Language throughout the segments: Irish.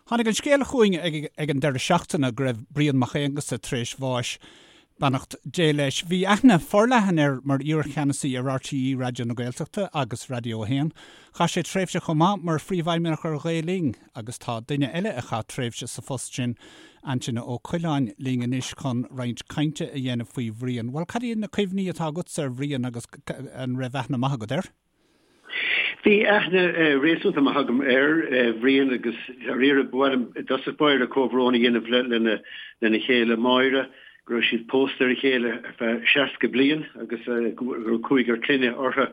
Tháinig an scéal chugainn ag an deireadh seachtaine go raibh Brian Mac Aonghusa tar éis bháis, beannacht Dé leis. Bhí aithne forleathan air mar iar-cheannasaí ar RTÉ Raidió na Gaeltachta agus Raidió 1. Chaith sé tréimhse chomh maith mar phríomhfheidhmeannach ar Ghael Linn agus tá duine eile a chaith tréimhse sa phost sin, Antaine Ó Coileáin, linn anois chun roinnt cainte a dhéanamh faoi Bhrian. Bhuel, cad iad na cuimhní atá agatsa ar Bhrian agus an raibh aithne maith agat air? Bhí aithne réasúnta maith agam ar Bhrian agus dáiríre ba mhaith liom i dtosach báire comhbhrón a dhéanamh lena chéile Máire, go raibh siad pósta ar a chéile ar feadh 60 bliain agus go raibh cúigear clainne orthu.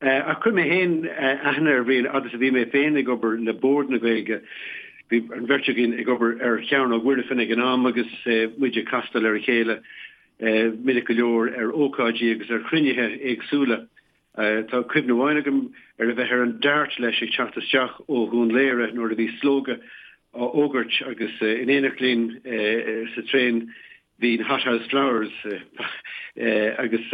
Ach chuir mé féin aithne ar Bhrian fhad is a bhí mé féin ag obair le Bord na Gaeilge. Bhí an bheirt againn ag obair ar Chearnóg Mhuirfean ag an am agus muid ag castáil ar a chéile minic go leor ar ócáidí agus ar chruinnithe éagsúla. Tá cuimhne amháin agam ar a bheith ar an Dart leis ag teacht isteach ó Dhún Laoghaire nuair a bhí slógadh á fhógairt agus in éineacht linn sa traein bhí na Hothouse Flowers agus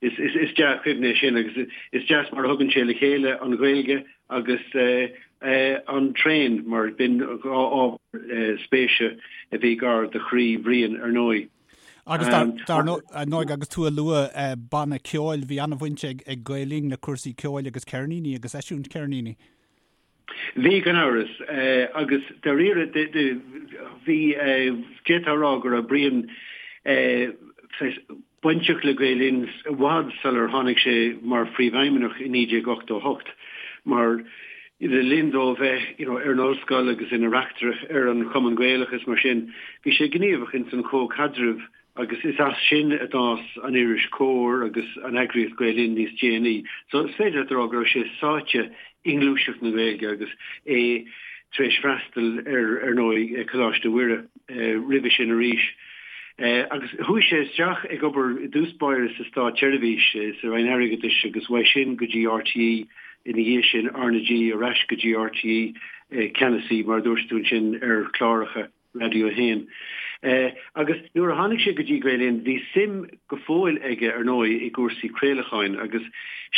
is dea-chuimhne é sin agus is deas mar a thugann sé le chéile an Ghaeilge agus an traein mar b'in dhá ábhar spéise a bhí gar do chroí Bhriain ar ndóigh. Agus dar ndóigh, agus tú ag lua banna ceoil, bhí an-bhaint ag Gael Linn le cúrsaí ceoil agus ceirníní agus eisiúint ceirníní. Bhí, gan amhras. Agus dáiríre, bhí, d'fhéadfá a rá go raibh Brian bainteach le Gael Linn i bhfad sular tháinig sé mar phríomhfheidhmeannach i 1988, mar Le linn dó bheith you know ar an ollscoil agus ina reachtaire ar an Chumann Gaelach is mar sin, bhí sé gníomhach ins an chomhchaidreamh agus is as sin a d'fhás an iris Comhar agus an eagraíocht Gael Linn níos déanaí. So is féidir leat a rá go raibh sé sáite i ngluaiseacht na Gaeilge agus é tar éis freastal ar ar ndóigh Coláiste Mhuire roimhe sin arís. Agus chuaigh sé isteach ag obair i dtús báire sa státseirbhís, sa Roinn Airgeadais agus uaidh sin go dtí RTÉ Ina dhiaidh sin, RnaG ar ais go dtí RTÉ, ceannasaí, mar a dúirt tú ansin, ar chláracha Raidió 1. Agus nuair a tháinig sé go dtí Gael Linn, bhí suim go fóill aige, ar ndóigh, i gcúrsaí craolacháin agus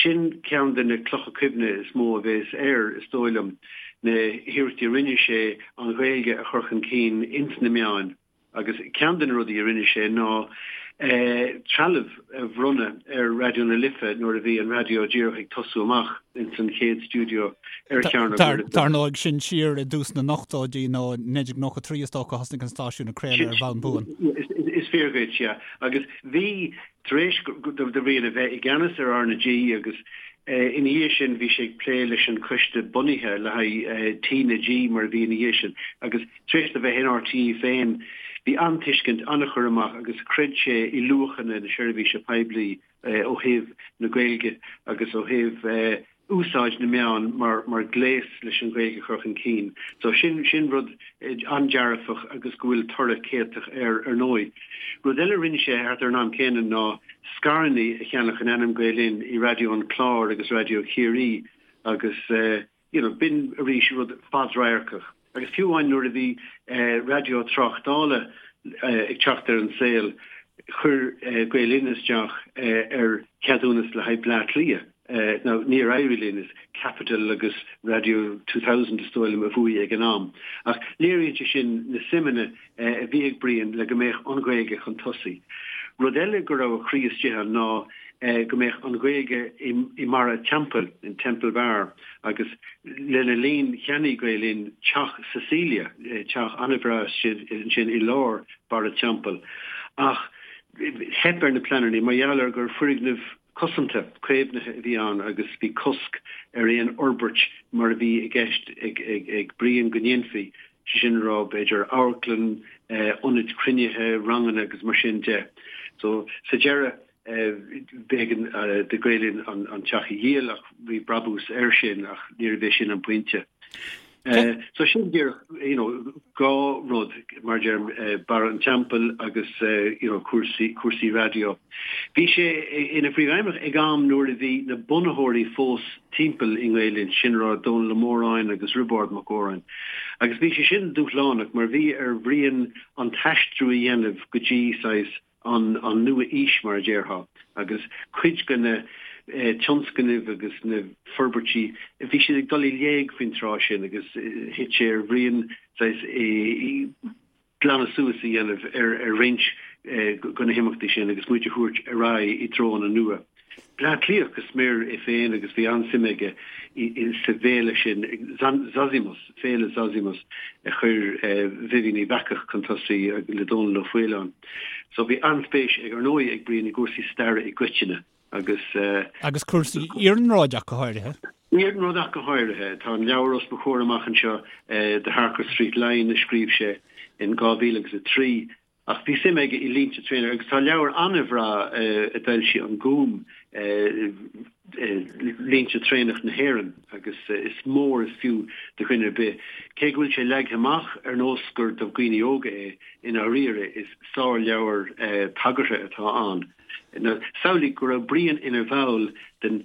sin ceann de na clocha cuimhne is mó a bhéas air, is dóigh liom, na hiarrachtaí a rinne sé an Ghaeilge a chur chun cinn ins na meáin. Agus ceann de na rudaí a rinne sé ná trealamh a bhronnadh ar Raidió na Life nuair a bhí an raidió díreach ag tosú amach ins an chéad stiúideo ar Chearnóg Mhuirfean. Dar ndóigh, sin siar i dtús na n-ochtóidí nó 1993 is dócha a thosnaigh an stáisiún ag craoladh ar bhonn buan. Is fíor dhuit, yeah. Agus bhí, tar éis do Bhrian a bheith i gceannas ar RnaG agus ina dhiaidh sin bhí sé ag plé leis an choiste bunaithe le haghaidh TnaG mar a bhí ina dhiaidh sin agus Tar éis dó bheith in RTÉ féin, bhí an-tuiscint, an-chur amach agus chreid sé i luachanna na seirbhíse poiblí ó thaobh na Gaeilge agus ó thaobh úsáid na meán mar ghléas leis an Ghaeilge a chur chun cinn. So sin, sin rud an-dearfach agus go bhfuil toradh céatach air ar ndóigh. Rud eile a rinne sé thart ar an am céanna ná scaireanna a cheannach in ainm Gael Linn i Raidió an Chláir agus Raidió Chiarraí agus you know, b'in arís rud fadradharcach. Agus fiú amháin nuair a bhí raidió tráchtála ag teacht ar an saol, chuir Gael Linn isteach ar cheadúnas le haghaidh Bleá Cliath. Now, níor éirigh linn, is Capital agus Radio 2000 is dóigh liom a bhuaigh ag an am. Ach léiríonn sé sin na suimeanna a bhí ag Brian le go mbeadh an Ghaeilge chun tosaigh. Rud eile go raibh a chroí istigh ann ná go mbeadh an Ghaeilge i mBarra an Teampaill, in Temple Bar, agus lena linn cheannaigh Gael Linn teach Cecilia, teach an-bhreá ansin i lár Barra an Teampaill. Ach theip ar na pleananna mar gheall ar gur foirgneamh cosanta, caomhnaithe a bhí ann agus bhí cosc ar aon fhorbairt mar a bhí i gceist ag Brian go ndéanfaí, sé sin a rá, b'fhéidir amharclann, ionaid cruinnithe, ranganna agus mar sin de. So, sa deireadh, b'éigean do Gael Linn an teach a dhíol ach bhí brabús air sin ach níorbh é sin an pointe. So sin díreach, you know, dhá rud, mar a deirim, Barra an Teampaill agus, you know, cúrsaí, cúrsaí raidió. Bhí sé ina phríomhfheidhmeannach ag am nuair a bhí na bunaitheoirí fós timpeall i nGael Linn, sin a rá Dónall Ó Móráin agus Roibeárd Mac Góráin. Agus bhí sé sin dúshlánach mar bhí ar Bhrian an t-aistriú a dhéanamh go dtí saghas an nua-aois mar a déarfá agus cuid de na. tionscnaimh agus na forbairtí, bhí siad ag dul i léig faoin tráth sin agus thit sé ar Bhrian saghas glanadh suas a dhéanamh ar roinnt de na himeachtaí sin agus muid a thabhairt ar aghaidh i dtreonna nua. Bleá Cliathach go smior é féin agus bhí an-suim aige sa bhféile sin, Zozimus, Féile Zozimus a chuir Vivian Uíbh Eachach chun tosaigh le Dónall Ó Faoláin. So bhí an-spéis ag, ar ndóigh, ag Brian i gcúrsaí staire i gcoitinne agus. Agus cúrsaí iarnróid ach go háirithe. Iarnróid ach go háirithe. Tá an leabhar os mo chomhair amach anseo, The Harcourt Street Line, a scríobh sé in 2003. Ach bhí suim aige i línte traenach agus tá leabhar an-bhreá a d'fhoilsigh an Gúm, Línte Traenach na hÉireann, agus is mór is fiú do dhuine ar bith. Cé go bhfuil sé leagtha amach ar nós gur do dhaoine óga é, i ndáiríre is sárleabhar tagartha atá ann. Samhlaigh go raibh Brian ina bhall den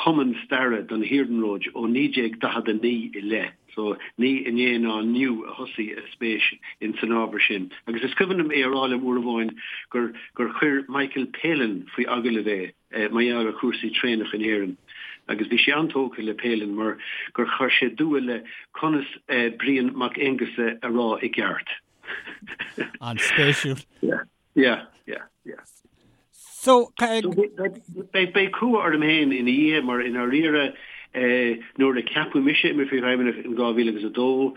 Chumann Staire don Iarnród ó 1949 i leith. So, ní inné ná inniu a thosaigh a spéis in san ábhar sin. Agus is cuimhin liom é a rá liom uair amháin gur gur chuir Michael Palin faoi agallamh é mar gheall ar chúrsaí traenach in Éirinn. Agus bhí sé an-tógtha le Palin mar gur chuir sé dua le conas Brian Mac Aonghusa a rá i gceart. An-spéisiúil. Yeah. Yeah, yeah, yeah. So, beidh cumha orm féin ina dhiaidh mar i ndáiríre nuair a ceapadh mise i mo phríomhfheidhmeannach in 2002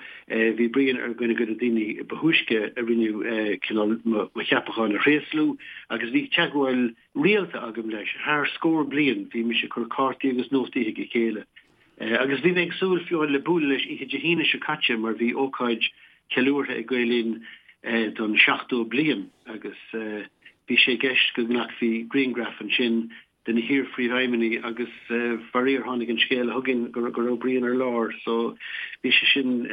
bhí Brian ar dhuine de na daoine ba thúisce a rinne cineál mo cheapachán a thréaslú agus bhí teagmháil rialta agam leis thar scór bliain. Bhí mise ag cur cártaí agus nótaí chuig a chéile. Agus bhí mé ag súil fiú le bualadh leis oíche Dé hAoine seo caite mar bhí ócáid cheiliúrtha ag Gael Linn don 70 bliain agus bhí sé i gceist go nglacfaí grianghraf ansin de na hiar-phríomhfheidhmeannaigh agus faraor tháinig an scéala chugainn go raibh Brian ar lár so bhí sé sin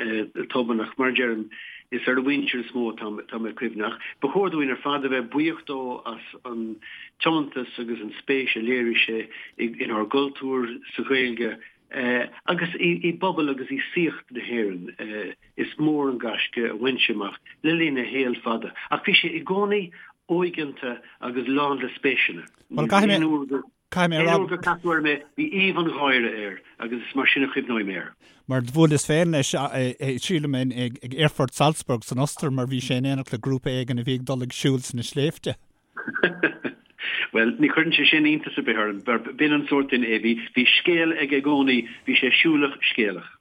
tobann ach mar a deirim is ar a mhuintir is mó atá mé cuimhneach. Ba chóir dúinn ar fad a bheith buíoch dó as an tiomantas agus an spéis a léirigh sé inár gcultúr, sa Ghaeilge agus i bpobal agus i saíocht na hÉireann. Is mór an gaisce a bhain sé amach le linn a shaoil fada, ach bhí sé i gcónaí óigeanta agus lán le spéiseanna. Caithfidh mé a rá. Aon uair gur casadh orm é, bhí aoibh an gháire air agus is mar sin a chuimhneoidh mé air. Mar do bhuaileas féin leis, sílim, ag Aerfort Salzburg san Ostair mar bhí sé in éineacht le grúpa éigin a bhí ag dul ag siúl sna sléibhte. Bhuel, ní chuireann sé sin iontas ar bith orm, mar b'in an sórt duine é. Bhí, bhí scéal aige i gcónaí, bhí sé siúlach scéalach.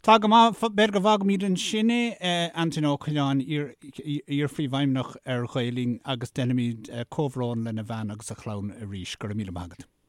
Tá go maith, b'fhéidir go bhfágfaimid ansin é, Antaine Ó Coileáin, iar-phríomhfheidhmeannach ar Ghael Linn agus déanfaimid comhbhrón lena bhean agus a chlann arís. Go raibh míle maith agat.